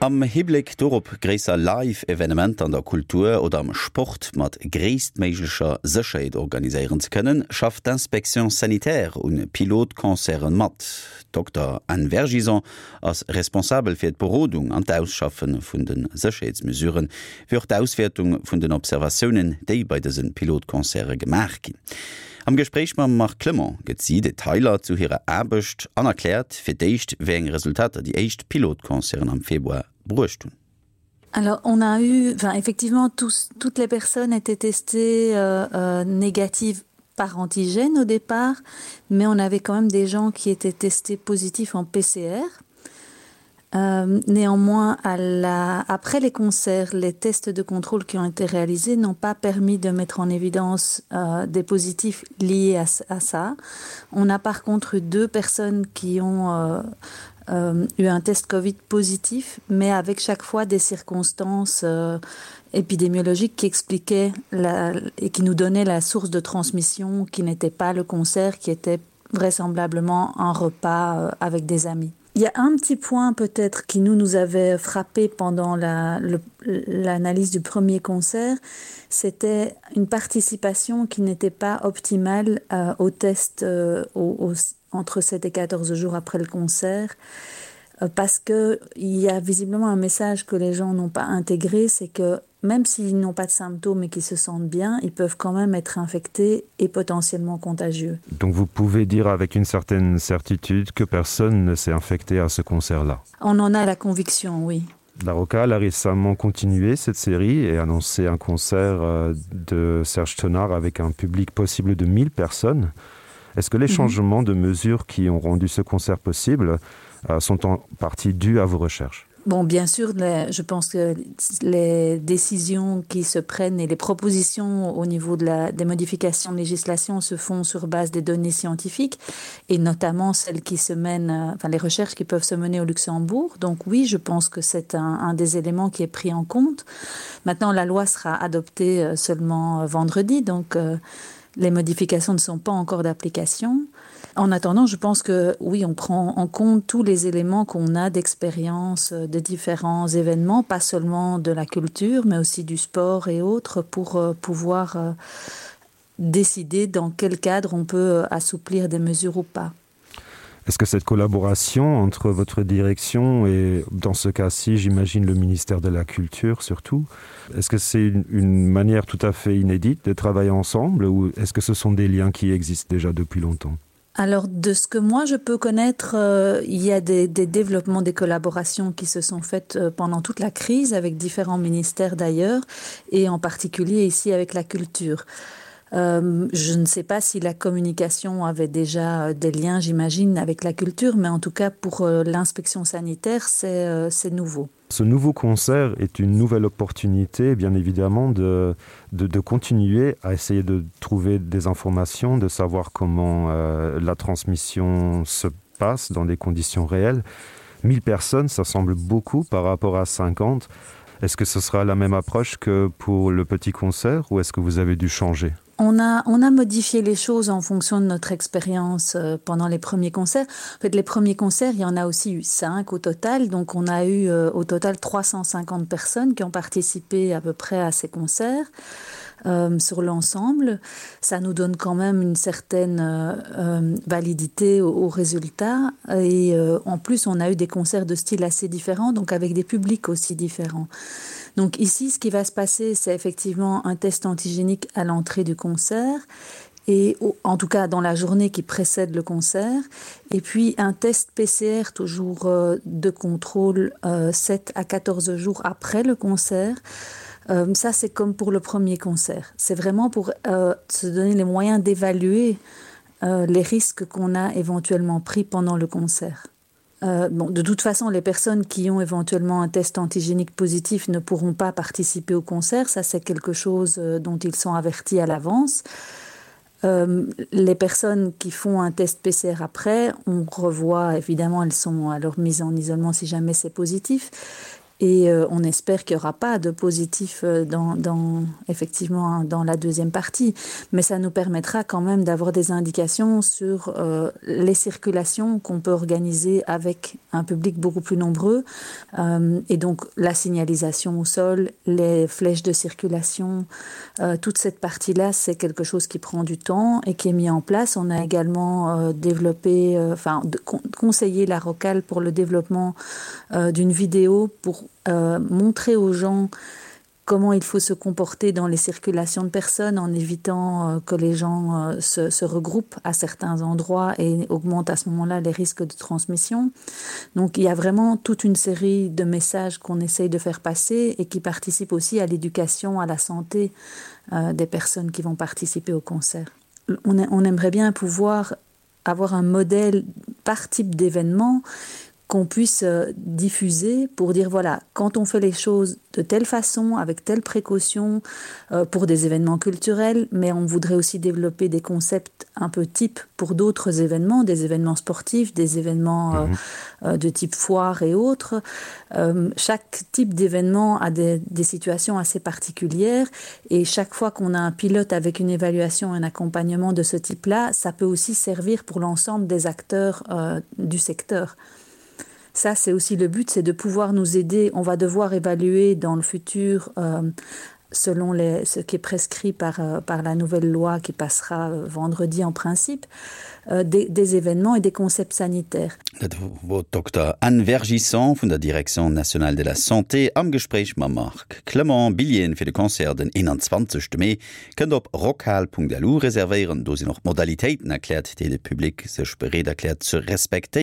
Am Hibléck dorop, gréisser Live-Evenementer an der Kultur oder am Sport mat gréisstméiglecher Sécherheet organiséieren ze kënnen, schafft d'Inspection sanitaire un Pilotconcerte mat. D'Dokter Anne Vergison ass responsabel fir d'Berodung an d'Ausschaffe vun de Sécherheetsmesuren, wéi och d'Auswäertung vun den Observatiounen, déi bei dëse Pilotconcerte gemaach ginn. Am Gespréich mam Marc Clement gëtt si Detailer zu hirer Aarbecht an erkläert fir d'éischt, wéi eng Resultater déi éischt Pilotconcerten am Februar bruecht hunn. Alors on a eu enfin effectivement tous toutes les personnes étaient testées euh, euh, négatives par antigène au départ, mais on avait quand même des gens qui étaient testés positifs en PCR. Euh, néanmoins, à la, après les concerts, les tests de contrôle qui ont été réalisés n'ont pas permis de mettre en évidence euh, des positifs liés à, à ça. On a par contre eu deux personnes qui ont euh, euh, eu un test Covid positif, mais avec chaque fois des circonstances euh, épidémiologiques qui expliquaient la, et qui nous donnaient la source de transmission qui n'était pas le concert, qui était vraisemblablement un repas euh, avec des amis. Il y a un petit point peut-être qui nous nous avait frappé pendant l'analyse la, du premier concert, c'était une participation qui n'était pas optimale euh, au test euh, au, au, entre 7 et 14 jours après le concert euh, parce qu'il y a visiblement un message que les gens n'ont pas intégré, c'est que même s'ils n'ont pas de symptômes et qu'ils se sentent bien, ils peuvent quand même être infectés et potentiellement contagieux. Donc vous pouvez dire avec une certaine certitude que personne ne s'est infecté à ce concert-là. On en a la conviction, oui. La Rocale a récemment continué cette série et annoncé un concert euh, de Serge Tenard avec un public possible de 1000 personnes. Est-ce que les mm -hmm. changements de mesures qui ont rendu ce concert possible euh, sont en partie dus à vos recherches? Bon, bien sûr, les, je pense que les décisions qui se prennent et les propositions au niveau de la, des modifications de législation se font sur base des données scientifiques et notamment celles qui se mènent, euh, enfin les recherches qui peuvent se mener au Luxembourg. Donc oui, je pense que c'est un, un des éléments qui est pris en compte. Maintenant, la loi sera adoptée euh, seulement euh, vendredi, donc les modifications ne sont pas encore d'application. En attendant, je pense que oui, on prend en compte tous les éléments qu'on a d'expérience euh, de différents événements, pas seulement de la culture, mais aussi du sport et autres pour euh, pouvoir euh, décider dans quel cadre on peut assouplir des mesures ou pas. Est-ce que cette collaboration entre votre direction et dans ce cas-ci, j'imagine le ministère de la Culture surtout, est-ce que c'est une, une manière tout à fait inédite de travailler ensemble ou est-ce que ce sont des liens qui existent déjà depuis longtemps? Alors de ce que moi je peux connaître, euh, il y a des, des développements des collaborations qui se sont faites euh, pendant toute la crise avec différents ministères d'ailleurs et en particulier ici avec la culture. Euh, je ne sais pas si la communication avait déjà euh, des liens, j'imagine, avec la culture, mais en tout cas pour euh, l'inspection sanitaire, c'est euh, nouveau. Ce nouveau concert est une nouvelle opportunité, bien évidemment, de, de, de continuer à essayer de trouver des informations, de savoir comment euh, la transmission se passe dans des conditions réelles. 1000 personnes, ça semble beaucoup par rapport à 50. Est-ce que ce sera la même approche que pour le petit concert ou est-ce que vous avez dû changer? On a, on a modifié les choses en fonction de notre expérience euh, pendant les premiers concerts. En fait, les premiers concerts, il y en a aussi eu 5 au total. Donc on a eu euh, au total 350 personnes qui ont participé à peu près à ces concerts. Euh, sur l'ensemble, ça nous donne quand même une certaine euh, euh validité au, au résultat et euh, en plus on a eu des concerts de styles assez différents donc avec des publics aussi différents. Donc ici ce qui va se passer c'est effectivement un test antigénique à l'entrée du concert et en tout cas dans la journée qui précède le concert et puis un test PCR toujours euh, de contrôle euh, 7 à 14 jours après le concert. Euh, ça c'est comme pour le premier concert. C'est vraiment pour euh, se donner les moyens d'évaluer euh, les risques qu'on a éventuellement pris pendant le concert. Euh, bon, de toute façon, les personnes qui ont éventuellement un test antigénique positif ne pourront pas participer au concert. Ça, c'est quelque chose euh, dont ils sont avertis à l'avance. Euh, les personnes qui font un test PCR après, on revoit évidemment, elles sont alors mises en isolement si jamais c'est positif. Et euh, on espère qu'il n'y aura pas de positif euh, dans, dans, effectivement dans la deuxième partie. Mais ça nous permettra quand même d'avoir des indications sur euh, les circulations qu'on peut organiser avec un public beaucoup plus nombreux euh, et donc la signalisation au sol, les flèches de circulation, euh, toute cette partie là c'est quelque chose qui prend du temps et qui est mis en place. On a également euh, développé euh, enfin de, con, conseillé la rocale pour le développement euh, d'une vidéo pour euh, montrer aux gens comment il faut se comporter dans les circulations de personnes en évitant euh, que les gens euh, se, se regroupent à certains endroits et augmentent à ce moment-là les risques de transmission. Donc il y a vraiment toute une série de messages qu'on essaye de faire passer et qui participent aussi à l'éducation, à la santé euh, des personnes qui vont participer au concert. On, on aimerait bien pouvoir avoir un modèle par type d'événement qu'on puisse euh, diffuser pour dire voilà quand on fait les choses de telle façon avec telle précaution euh, pour des événements culturels mais on voudrait aussi développer des concepts un peu type pour d'autres événements des événements sportifs des événements euh, mmh. euh, de type foire et autres euh, chaque type d'événement a des, des situations assez particulières et chaque fois qu'on a un pilote avec une évaluation un accompagnement de ce type là ça peut aussi servir pour l'ensemble des acteurs euh, du secteur ça c'est aussi le but c'est de pouvoir nous aider on va devoir évaluer dans le futur euh, selon les, ce qui est prescrit par, euh, par la nouvelle loi qui passera euh, vendredi en principe euh, des, des événements et des concepts sanitaires. Dat wor d'Dokter Anne Vergison vun der Direction nationale de la santé am Gespréich mam Marc Clement. Billjeeën fir de Concert den 21 Mee kënnt op rockhal.lu reservéieren. Do sinn och d'Modalitéiten erkläert, déi de Public sech bereet erkläert ze respektéieren.